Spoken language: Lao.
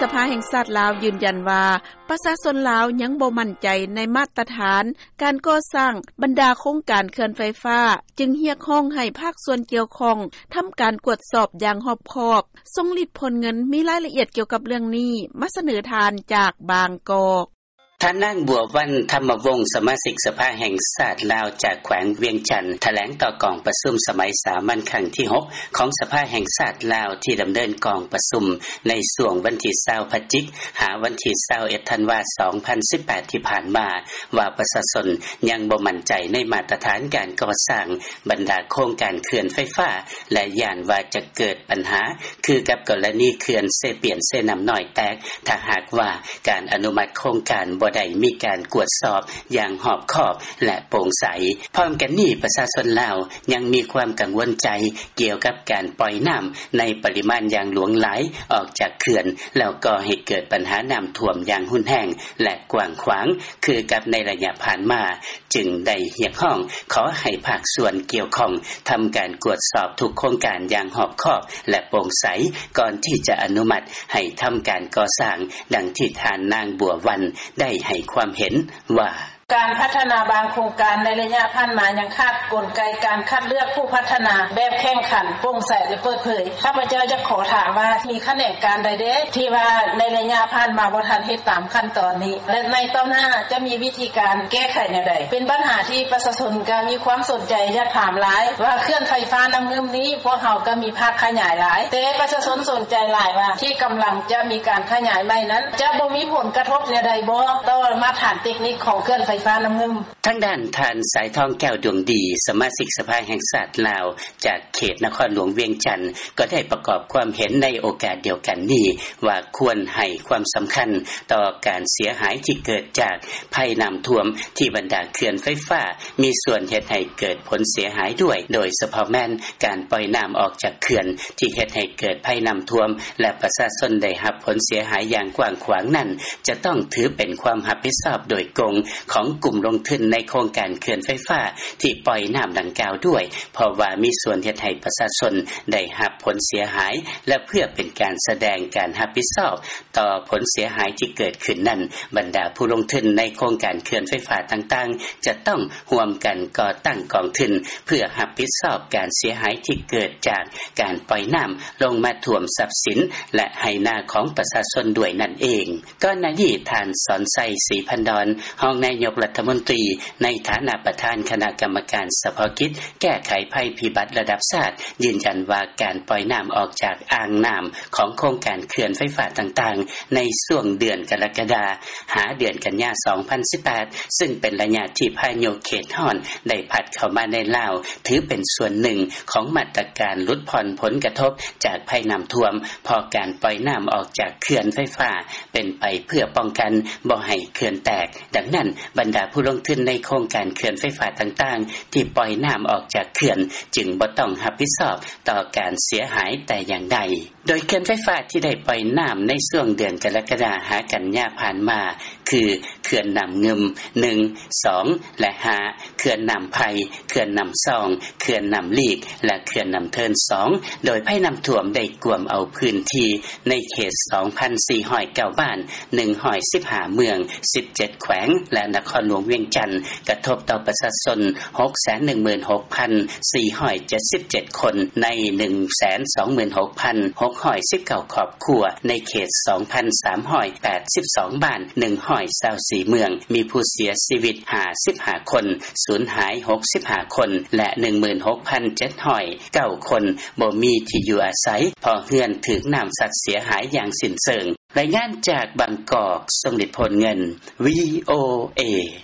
ສະພາແຫ່ງຊາດລາວ ຢືນຢັນວ່າ ປະຊາຊົນລາວ ຍັງບໍ່ໝັ້ນໃຈ ໃນມາດຕະຖານ ການກໍ່ສ້າງ ບັນດາໂຄງການເຂື່ອນໄຟຟ້າ ຈຶ່ງຮຽກຮ້ອງໃຫ້ພາກສ່ວນກ່ຽວຂ້ອງ ທຳການກວດສອບ ຢ່າງຮອບຄອບ. ຊົງລິດ ໂພນເງິນ ມີລາຍລະອຽດ ກ່ຽວກັບເລື່ອງນີ້ ມາສະເໜີທ່ານ ຈາກບາງກອກ. ທ່ານນາງ ບົວວັນ ທຳມະວົງ ສະມາຊິກສະພາແຫ່ງຊາດລາວ ຈາກແຂວງວຽງຈັນ ຖະແຫຼງຕໍ່ກອງປະຊຸມ ສະໄໝສາມັນຄັ້ງທີຫົກ ຂອງສະພາແຫ່ງຊາດລາວ ທີ່ດຳເນີນກອງປະຊຸມ ໃນຊ່ວງວັນທີຊາວ ພະຈິກ ຫາວັນທີຊາວເອັດ ທັນວາ ສອງພັນສິບແປດ ທີ່ຜ່ານມາ ວ່າປະຊາຊົນ ຍັງບໍ່ໝັ້ນໃຈ ໃນມາດຕະຖານ ການກໍ່ສ້າງ ບັນດາໂຄງການເຂື່ອນໄຟຟ້າ ແລະ ຢ້ານວ່າຈະເກີດບັນຫາ ຄືກັບກໍລະນີເຂື່ອນເຊປຽນ-ເຊນ້ຳນ້ອຍແຕກ ຖ້າຫາກວ່າການອະນຸມັດໂຄງການ ບໍ່ໄດ້ມີການກວດສອບ ຢ່າງຮອບຄອບ ແລະ ໂປ່ງໃສ. ພ້ອມກັນນີ້ ປະຊາຊົນລາວ ຍັງມີຄວາມກັງວົນໃຈ ກ່ຽວກັບການປ່ອຍນ້ຳ ໃນປະລິມານຢ່າງຫຼວງຫຼາຍ ອອກຈາກເຂື່ອນ ແລ້ວກໍ່ໃຫ້ເກີດບັນຫານ້ຳຖ້ວມ ຢ່າງຮຸນແຮງ ແລະ ກວ້າງຂວາງ ຄືກັບໃນໄລຍະຜ່ານມາ ຈຶ່ງໄດ້ຮຽກຮ້ອງ ຂໍໃຫ້ພາກສ່ວນກ່ຽວຂ້ອງ ທຳການກວດສອບທຸກໂຄງການ ຢ່າງຮອບຄອບ ແລະ ໂປ່ງໃສ ກ່ອນທີ່ຈະອະນຸມັດ ໃຫ້ທຳການກໍ່ສ້າງ ດັ່ງທີ່ທ່ານນາງ ບົວວັນ ໄດ້ໃຫ້ຄວາມເຫັນວ່າ: “ການພັດທະນາບາງໂຄງການ ໃນໄລຍະຜ່ານມາ ຍັງຂາດກົນໄກການຄັດເລືອກຜູ້ພັດທະນາ ແບບແຂ່ງຂັນ, ໂປ່ງໃສ ແລະ ເປີດເຜີຍ. ຂ້າພະເຈົ້າຢາກຂໍຖາມວ່າ ມີຂະແໜງການໃດແດ່ ທີ່ວ່າໃນໄລຍະຜ່ານມາ ບໍ່ທັນເຮັດຕາມຂັ້ນຕອນນີ້ ແລະ ໃນຕໍ່ໜ້າຈະມີວິທີການແກ້ໄຂແນວໃດ? ເປັນບັນຫາທີ່ປະຊາຊົນກໍມີຄວາມສົນໃຈ ຢາກຖາມຫຼາຍວ່າ ເຂື່ອນໄຟຟ້ານ້ຳງື່ມນີ້ ພວກເຮົາກໍມີພາກຂະຫຍາຍຫຼາຍ ແຕ່ປະຊາຊົນສົນໃຈຫຼາຍວ່າ ທີ່ກຳລັງຈະມີການຂະຫຍາຍໃໝ່ນັ້ນ ຈະບໍ່ມີຜົນກະທົບແນວໃດບໍ່ ຕໍ່ມາດຕະຖານເຕັກນິກຂອງເຂື່ອນໄຟຟ້ານ້ຳງື່ມ.” ທາງດ້ານ ທ່ານ ສາຍທອງ ແກ້ວດວງດີ ສະມາຊິກສະພາແຫ່ງຊາດລາວ ຈາກເຂດນະຄອນຫຼວງວຽງຈັນ ກໍໄດ້ປະກອບຄວາມເຫັນໃນໂອກາດດຽວກັນນີ້ວ່າ ຄວນໃຫ້ຄວາມສຳຄັນຕໍ່ການເສຍຫາຍທີ່ເກີດຈາກໄພນ້ຳຖ້ວມ ທີ່ບັນດາເຂື່ອນໄຟຟ້າມີສ່ວນເຮັດໃຫ້ເກີດຜົນເສຍຫາຍດ້ວຍ, ໂດຍສະເພາະແມ່ນການປ່ອຍນ້ຳອອກຈາກເຂື່ອນ ທີ່ເຮັດໃຫ້ເກີດໄພນ້ຳຖ້ວມ ແລະ ປະຊາຊົນໄດ້ຮັບຜົນເສຍຫາຍຢ່າງກວ້າງຂວາງນັ້ນ ຈະຕ້ອງຖືເປັນຄວາມຮັບຜິດຊອບໂດຍກົງຂອງກຸ່ມລົງທຶນໃນໂຄງການເຂື່ອນໄຟຟ້າທີ່ປ່ອຍນ້ຳດັ່ງກ່າວດ້ວຍ ເພາະວ່າມີສ່ວນເຮັດໃຫ້ປະຊາຊົນໄດ້ຮັບຜົນເສຍຫາຍ ແລະ ເພື່ອເປັນການສະແດງການຮັບຜິດຊອບຕໍ່ຜົນເສຍຫາຍທີ່ເກີດຂຶ້ນນັ້ນ, ບັນດາຜູ້ລົງທຶນໃນໂຄງການເຂື່ອນໄຟຟ້າຕ່າງໆ ຈະຕ້ອງຮ່ວມກັນກໍ່ຕັ້ງກອງທຶນ ເພື່ອຮັບຜິດຊອບການເສຍຫາຍທີ່ເກີດຈາກການປ່ອຍນ້ຳລົງມາຖ້ວມຊັບສິນ ແລະ ໄຮ່ນາຂອງປະຊາຊົນດ້ວຍນັ້ນເອງ. ກ່ອນໜ້ານີ້ ທ່ານ ສອນໄຊ ສີພັນດອນ ຮອງນາຍົກລັດຖະມົນຕີ ໃນຖານະປະທານຄະນະກຳມະການສະເພາະກິດແກ້ໄຂໄພພິບັດລະດັບຊາດ ຢືນຢັນວ່າ ການປ່ອຍນ້ຳອອກຈາກອ່າງນ້ຳຂອງໂຄງການເຂື່ອນໄຟຟ້າຕ່າງໆ ໃນຊ່ວງເດືອນກໍລະກະດາ ຫາເດືອນກັນຍາ ສອງພັນສິບແປດ ຊຶ່ງເປັນໄລຍະທີ່ພາຍຸເຂດຮ້ອນໄດ້ພັດເຂົ້າມາໃນລາວ ຖືເປັນສ່ວນໜຶ່ງຂອງມາດຕະການຫຼຸດຜ່ອນຜົນກະທົບຈາກໄພນ້ຳຖ້ວມ ເພາະການປ່ອຍນ້ຳອອກຈາກເຂື່ອນໄຟຟ້າ ເປັນໄປເພື່ອປ້ອງກັນບໍ່ໃຫ້ເຂື່ອນແຕກ. ດັ່ງນັ້ນ, ບັນດາຜູ້ລົງທຶນໃນໂຄງການເຂື່ອນໄຟຟ້າຕ່າງໆ ທີ່ປ່ອຍນ້ຳອອກຈາກເຂື່ອນ ຈຶ່ງບໍ່ຕ້ອງຮັບຜິດຊອບຕໍ່ການເສຍຫາຍແຕ່ຢ່າງໃດ. ໂດຍເຂື່ອນໄຟຟ້າທີ່ໄດ້ປ່ອຍນ້ຳໃນຊ່ວງເດືອນກໍລະກະດາ ຫາກັນຍາຜ່ານມາ ຄື ເຂື່ອນນ້ຳງື່ມ ໜຶ່ງ ສອງ ແລະ ຫ້າ, ເຂື່ອນນ້ຳໄຜ່, ເຂື່ອນນ້ຳຊອງ, ເຂື່ອນນ້ຳລີກ ແລະ ເຂື່ອນນ້ຳເທີນ ສອງ, ໂດຍໄພນ້ຳຖ້ວມໄດ້ກວມເອົາພື້ນທີ່ໃນເຂດ ສອງພັນສີ່ຮ້ອຍເກົ້າ ບ້ານ, ໜຶ່ງຮ້ອຍສິບຫ້າ ເມືອງ, ສິບເຈັດ ແຂວງ ແລະ ນະຄອນຫຼວງວຽງຈັນ ກະທົບຕໍ່ປະຊາຊົນ ຫົກແສນໜຶ່ງໝື່ນຫົກພັນສີ່ຮ້ອຍເຈັດສິບເຈັດ ຄົນ ໃນ ໜຶ່ງແສນສອງໝື່ນຫົກພັນຫົກຮ້ອຍສິບເກົ້າ ຄອບຄົວ ໃນເຂດ ສອງພັນສາມຮ້ອຍແປດສິບສອງ ບ້ານ, ໜຶ່ງຮ້ອຍຊາວສີ່ ເມືອງ, ມີຜູ້ເສຍຊີວິດ ຫ້າສິບຫ້າ ຄົນ, ສູນຫາຍ ຫົກສິບຫ້າ ຄົນ ແລະ ໜຶ່ງໝື່ນຫົກພັນເຈັດຮ້ອຍເກົ້າ ຄົນ ບໍ່ມີທີ່ຢູ່ອາໄສ ເພາະເຮືອນຖືກນ້ຳຊັດເສຍຫາຍຢ່າງສິ້ນເຊີງ. ລາຍງານຈາກບາງກອກ, ຊົງລິດ ໂພນເງິນ, ວີໂອເອ.